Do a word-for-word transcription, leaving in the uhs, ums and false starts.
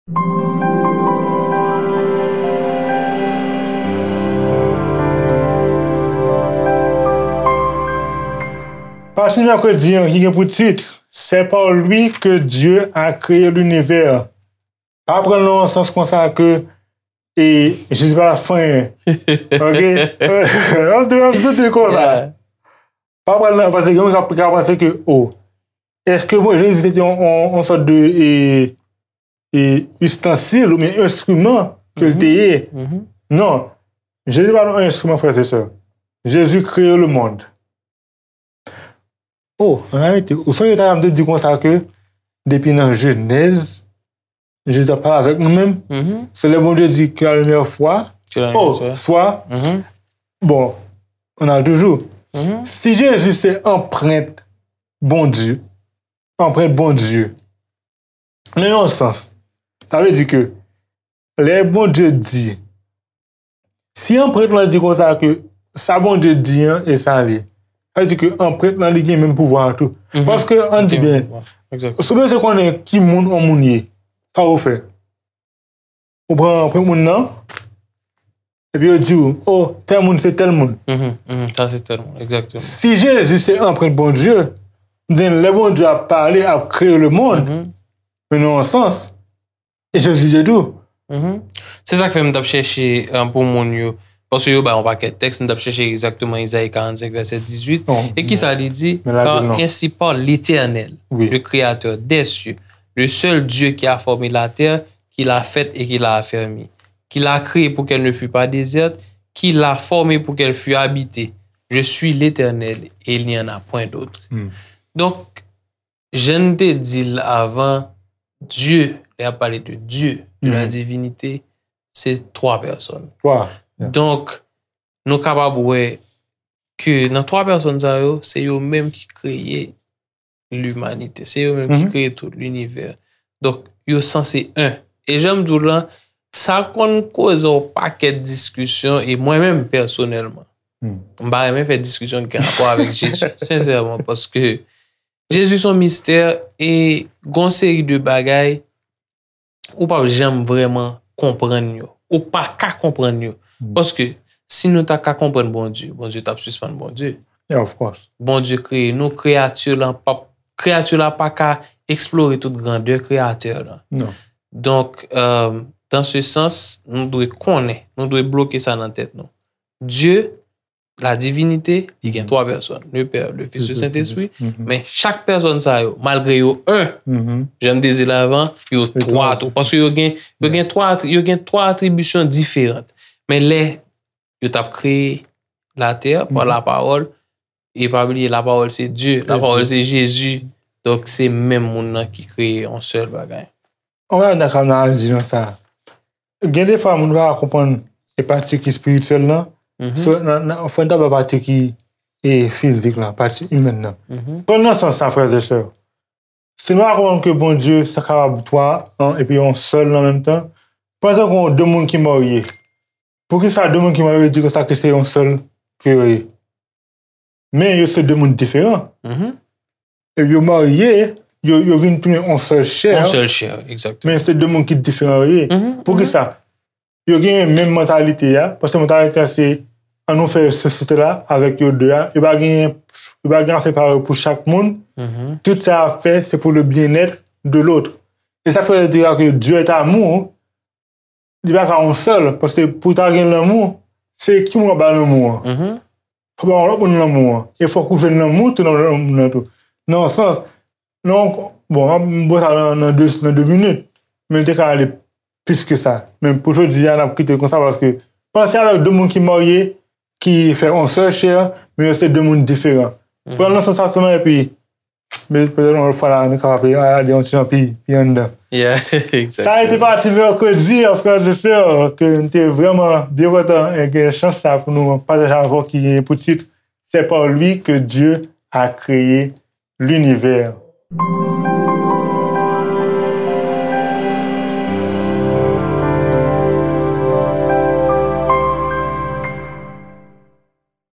Pati mèkredi an ki gen pou tit, C'est par lui que Dieu a créé l'univers. Pa pran l nan yon sans konsa ke e, Jezi pa fè anyen. Ok? M ap di, m ap di konsa. Pa pran l nan, paske gen moun k ap ka panse ke, oh, èske bon, Jezi se te yon, yon, yon sòt de e, e, istansil oubyen enstriman ke l te ye? Non. Jezi pa t yon enstriman, frè e sè. Jezi kreye lemonn. Oh, an reyalite, ou sonje ta m te di konsa ke depi nan Jenèz, Jezi ap pale avèk nou menm. Se lè Bondye di que la lumière soit. Que la lumière soit. Oh, soit. Bon, on a toujours. Si Jezi se anprent Bondye, anprent Bondye, nan yon sans, sa vle di ke lè Bondye di, si anprent lan di konsa ke sa Bondye di an e sa li, sa vle di ke anprent lan li gen menm pouvwa an tou. Paske, ann di byen, si w bezwen konnen ki moun yon moun ye, sa w fè? Ou pran anprent moun nan, epi yo di w, oh, tèl moun se tèl moun. Si Jezi se anprent Bondye, then lè Bondye ap pale, ap kreye lemonn, men nan yon sans, e Jezi te tou. Se sa k fè m t ap chèche pou moun yo, paske yo bay yon pakèt tèks, m t ap chèche egzakteman Izayi karannsenk vèsè dizuit. E kisa li di? Car ainsi parle l'Éternel, le Créateur des cieux, le seul Dieu qui a formé la terre, qui l'a faite et qui l'a affermie, qui l'a créée pour qu'elle ne fût pas déserte, qui l'a formée pour qu'elle fût habitée. Je suis l'Éternel et il n'y en a point d'autre. Donk, jan n te di l avan, Dye, lè y ap pale de Dye, de la divinite, se twa pèsòn. Donk, nou kapab wè ke nan twa pèsòn sa yo, se yo menm ki kreye limanite. Se yo menm ki kreye tout linivè. Donk, yo sanse en. E jan m di w lan, sa konn koze yon pakèt diskisyon, e mwen menm, pèsonèlman, m pa renmen fè diskisyon ki gen rapò avèk Jezi, sensèman, paske Jezi se yon mistè, e gen yon seri de bagay ou p ap janm vrèman konprann yo. Ou pa ka konprann yo. Paske si nou ta ka konprann Bondye, Bondye t ap sispann Bondye. Bondye kreye nou, kreyati la p ap, kreyati la pa ka eksplore tout grandè Kreyatè la. Donk, euh, dans ce sens, nou dwe konnen, nou dwe bloke sa nan tèt nou. Dye, la divinite, li gen twa pèsòn, le Pè, le Fis, le Sentespri. Men chak pèsòn sa yo, malgre yo en, jan m te di l avan, yo twa tou. Paske yo gen, yo gen twa, yo gen twa atribisyon diferan. Men lè yo t ap kreye latè pa lapawòl, e pa bliye, lapawòl se Dye, lapawòl se Jezi. Donk, se menm moun nan ki kreye yon sèl bagay. Yon bagay m ta ka analize nan sa. Gen defwa moun pa ka konprann e pati ki espirityèl lan. So, nan, nan, fò n ta ba pati ki e fizik lan, pati imèn nan. Pran nan sans sa, frè e sè. Si nou pa konprann ke Bondye se kapab twa an epi yon sèl nan menm tan, pran egzanp de moun ki marye. Poukisa de moun ki marye di konsa ke se yon sèl ke yo ye? Men yo se de moun diferan. E yo marye, yo, yo vin tounen yon sèl chè. Yon sèl chè, egzakteman. Men se de moun ki diferan yo ye. Poukisa? Yo gen menm mantalite a, paske mantalite a se, ann nou fè sosyete la avèk yo de a. Yo pa gen, yo pa gen afè parèy pou chak moun. Tout sa y ap fè, se pou le bien-être de l'autre. E sa fè yo di ke Dieu est amour, li pa ka yon sèl, paske pou w ta gen lanmou, se ki moun w ap bay lanmou an? Fò w bay yon lòt moun lanmou an. E fòk ou jwenn lanmou tou nan lòt moun nan tou. Nan yon sans, nan yon, bon, m ap ba w sa nan, nan de, nan de minit, men m te ka ale plis ke sa. Men pou jodi a, n ap kite l konsa, paske panse avèk de moun ki marye, ki fè yon sèl chè, men yo se de moun diferan. Pran l nan sans sa sèlman, epi Men petèt yon lòt fwa la, nou kapab ale yon ti jan pi, pi anndan. Sa a été pati mèkredi, frè e sè, ke m te vrèman byen kontan e gen chans sa pou nou pataje avè w ki gen pou tit C'est par lui que Dieu a créé l'univers.